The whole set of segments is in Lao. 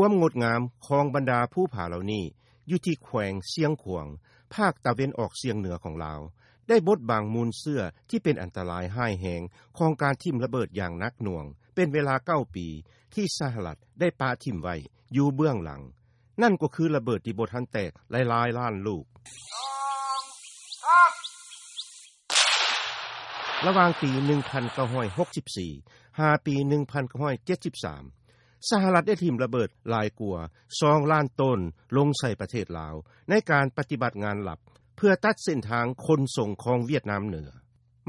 ຄວາມງົດງາມຂອງບັນດາພູຜາເຫຼົ່ານີ້ ຢູ່ທີ່ແຂວງຊຽງຂວາງ ພາກຕາເວັນອອກສ່ຽງເໜືອຂອງລາວ ໄດ້ບົດບັງມູນເຊື້ອທີ່ເປັນອັນຕະລາຍຮ້າຍແຮງຂອງການຖິ້ມລະເບີດຢ່າງໜັກໜ່ວງ ເປັນເວລາເກົ້າປີ ທີ່ສະຫະລັດໄດ້ປະຖິ້ມໄວ້ຢູ່ເບື້ອງຫຼັງ. ນັ້ນກໍຄືລະເບີດທີ່ບໍ່ທັນແຕກຫຼາຍໆລ້ານລູກ. ລະຫວ່າງປີໜຶ່ງພັນເກົ້າຮ້ອຍຫົກສິບສີ່ ຫາປີໜຶ່ງພັນເກົ້າຮ້ອຍເຈັດສິບສາມ ສະຫະລັດໄດ້ຖິ້ມລະເບີດຫຼາຍກວ່າສອງລ້ານໂຕນລົງໃສ່ປະເທດລາວ ໃນການປະຕິບັດງານລັບ ເພື່ອຕັດເສັ້ນທາງຂົນສົ່ງຂອງຫວຽດນາມເໜືອ.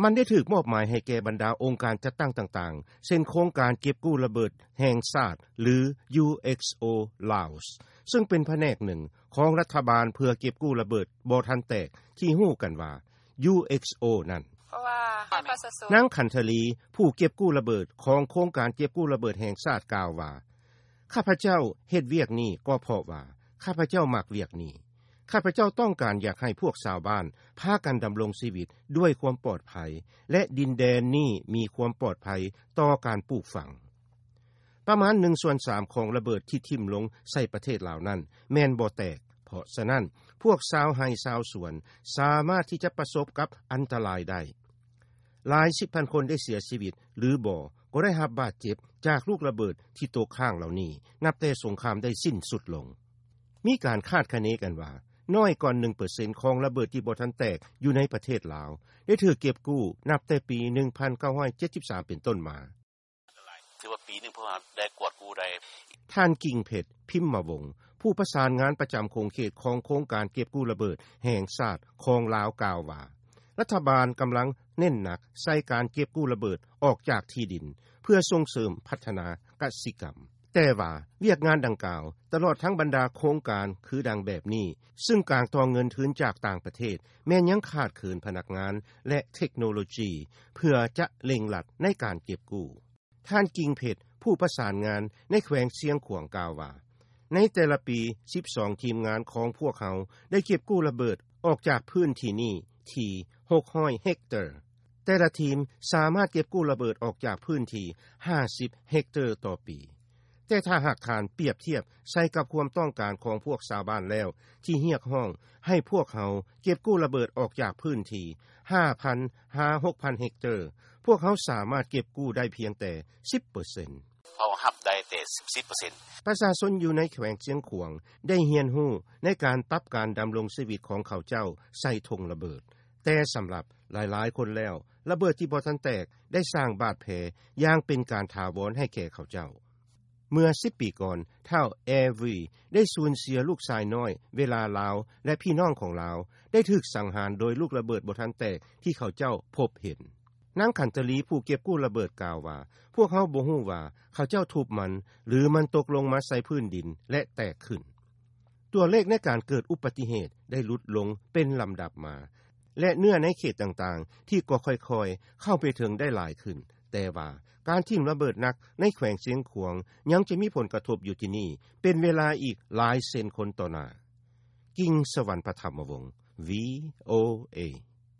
ມັນໄດ້ຖືກມອບໝາຍໃຫ້ແກ່ບັນດາອົງການຈັດຕັ້ງຕ່າງໆ ເຊັ່ນໂຄງການເກັບກູ້ລະເບີດແຫ່ງຊາດ ຫຼື UXO Laos ຊຶ່ງເປັນພະແນກໜຶ່ງຂອງລັດຖະບານເພື່ອເກັບກູ້ລະເບີດບໍ່ທັນແຕກ ທີ່ຮູ້ກັນວ່າ UXO ນັ້ນ. ນາງ ຂັນທະລີ ຜູ້ເກັບກູ້ລະເບີດຂອງໂຄງການເກັບກູ້ລະເບີດແຫ່ງຊາດ ກ່າວວ່າ ຂ້າພະເຈົ້າເຮັດວຽກນີ້ກໍເພາະວ່າ ຂ້າພະເຈົ້າມັກວຽກນີ້. ຂ້າພະເຈົ້າຕ້ອງການຢາກໃຫ້ພວກຊາວບ້ານພາກັນດຳລົງຊີວິດດ້ວຍຄວາມປອດໄພ ແລະ ດິນແດນນີ້ມີຄວາມປອດໄພຕໍ່ການປູກຝັງ. ປະມານໜຶ່ງສ່ວນສາມຂອງລະເບີດທີ່ຖິ້ມລົງໃສ່ປະເທດລາວນັ້ນແມ່ນບໍ່ແຕກ. ເພາະສະນັ້ນ ພວກຊາວໄຮ່ຊາວສວນສາມາດທີ່ຈະປະສົບກັບອັນຕະລາຍໄດ້. ຫຼາຍສິບພັນຄົນໄດ້ເສຍຊີວິດ ຫຼືບໍ່ກໍໄດ້ຮັບບາດເຈັບຈາກລູກລະເບີດທີ່ຕົກຄ້າງເຫຼົ່ານີ້ ນັບແຕ່ສົງຄາມໄດ້ສິ້ນສຸດລົງ. ມີການຄາດຄະເນກັນວ່າ ນ້ອຍກ່ອນໜຶ່ງເປີເຊັນຂອງລະເບີດທີ່ບໍ່ທັນແຕກຢູ່ໃນປະເທດລາວ ໄດ້ຖືກເກັບກູ້ນັບແຕ່ປີໜຶ່ງພັນເກົ້າຮ້ອຍເຈັດສິບສາມເປັນຕົ້ນມາ. ຖືວ່າປີໜຶ່ງພວກເຮົາໄດ້ກວດກູ້ໄດ້. ທ່ານ ກິ່ງເພັດ ພິມມະວົງ ຜູ້ປະສານງານປະຈຳຂົງເຂດຂອງໂຄງການເກັບກູ້ລະເບີດແຫ່ງຊາດຂອງລາວກ່າວວ່າ ລັດຖະບານກຳລັງເນັ້ນໜັກໃສ່ການເກັບກູ້ລະເບີດອອກຈາກທີ່ດິນ ເພື່ອສົ່ງເສີມພັດທະນາກະສິກຳ. ແຕ່ວ່າວຽກງານດັ່ງກ່າວ ຕະຫຼອດທັງບັນດາໂຄງການຄືດັ່ງແບບນີ້ ຊຶ່ງການຕໍ່ເງິນທຶນຈາກຕ່າງປະເທດ ແມ່ນຍັງຂາດເຂີນພະນັກງານ ແລະ ເທັກໂນໂລຈີ ເພື່ອຈະເລັ່ງລັດໃນການເກັບກູ້. ທ່ານ ກິ່ງເພັດ ຜູ້ປະສານງານໃນແຂວງຊຽງຂວາງກ່າວວ່າ ໃນແຕ່ລະປີ ສິບສອງທີມງານຂອງພວກເຮົາໄດ້ເກັບກູ້ລະເບີດອອກຈາກພື້ນທີ່ນີ້ທີ່ຫົກຮ້ອຍເຮັກເຕີ. ແຕ່ລະທີມສາມາດເກັບກູ້ລະເບີດອອກຈາກພື້ນທີ່ຫ້າສິບເຮັກເຕີຕໍ່ປີ. ແຕ່ຖ້າຫາກທ່ານປຽບທຽບໃສ່ກັບຄວາມຕ້ອງການຂອງພວກຊາວບ້ານແລ້ວ ທີ່ຮຽກຮ້ອງໃຫ້ພວກເຮົາເກັບກູ້ລະເບີດອອກຈາກພື້ນທີ່ຫ້າພັນຫາຫົກພັນເຮັກເຕີ, ພວກເຮົາສາມາດເກັບກູ້ໄດ້ພຽງແຕ່ສິບເປີເຊັນ. ເຮົາຮັບໄດ້ແຕ່ສິບເປີເຊັນ. ປະຊາຊົນຢູ່ໃນແຂວງຊຽງຂວາງໄດ້ຮຽນຮູ້ໃນການປັບການດຳລົງຊີວິດຂອງເຂົາເຈົ້າໃສ່ຖົງລະເບີດ. ແຕ່ສຳລັບຫຼາຍໆຄົນແລ້ວ, ລະເບີດທີ່ບໍ່ທັນແຕກໄດ້ສ້າງບາດແຜຢ່າງເປັນການຖາວອນໃຫ້ແກ່ເຂົາເຈົ້າ. ເມື່ອສິບປີກ່ອນ, ທ້າວ ແອວີ ໄດ້ສູນເສຍລູກຊາຍນ້ອຍ ເວລາລາວ ແລະ ພີ່ນ້ອງຂອງລາວໄດ້ຖືກສັງຫານໂດຍລູກລະເບີດບໍ່ທັນແຕກທີ່ເຂົາເຈົ້າພົບເຫັນ. ນາງ ຂັນທະລີ ຜູ້ເກັບກູ້ລະເບີດກ່າວວ່າ, ພວກເຮົາບໍ່ຮູ້ວ່າເຂົາເຈົ້າທຸບມັນ ຫຼື ມັນຕົກລົງມາໃສ່ພື້ນດິນ ແລະ ແຕກຂຶ້ນ. ຕົວເລກໃນການເກີດອຸບັດຕິເຫດໄດ້ຫຼຸດລົງເປັນລຳດັບມາ ແລະ ເນື້ອໃນເຂດຕ່າງໆ ທີ່ກໍຄ່ອຍໆເຂົ້າໄປເຖິງໄດ້ຫຼາຍຂຶ້ນ, ແຕ່ວ່າການຖິ້ມລະເບີດໜັກໃນແຂວງຊຽງຂວາງຍັງຈະມີຜົນກະທົບຢູ່ທີ່ນີ້ເປັນເວລາອີກຫຼາຍເຊັນຄົນຕໍ່ໜ້າ. ກິ່ງສະຫວັນ ປະຖຳມະວົງ ວີໂອເອ.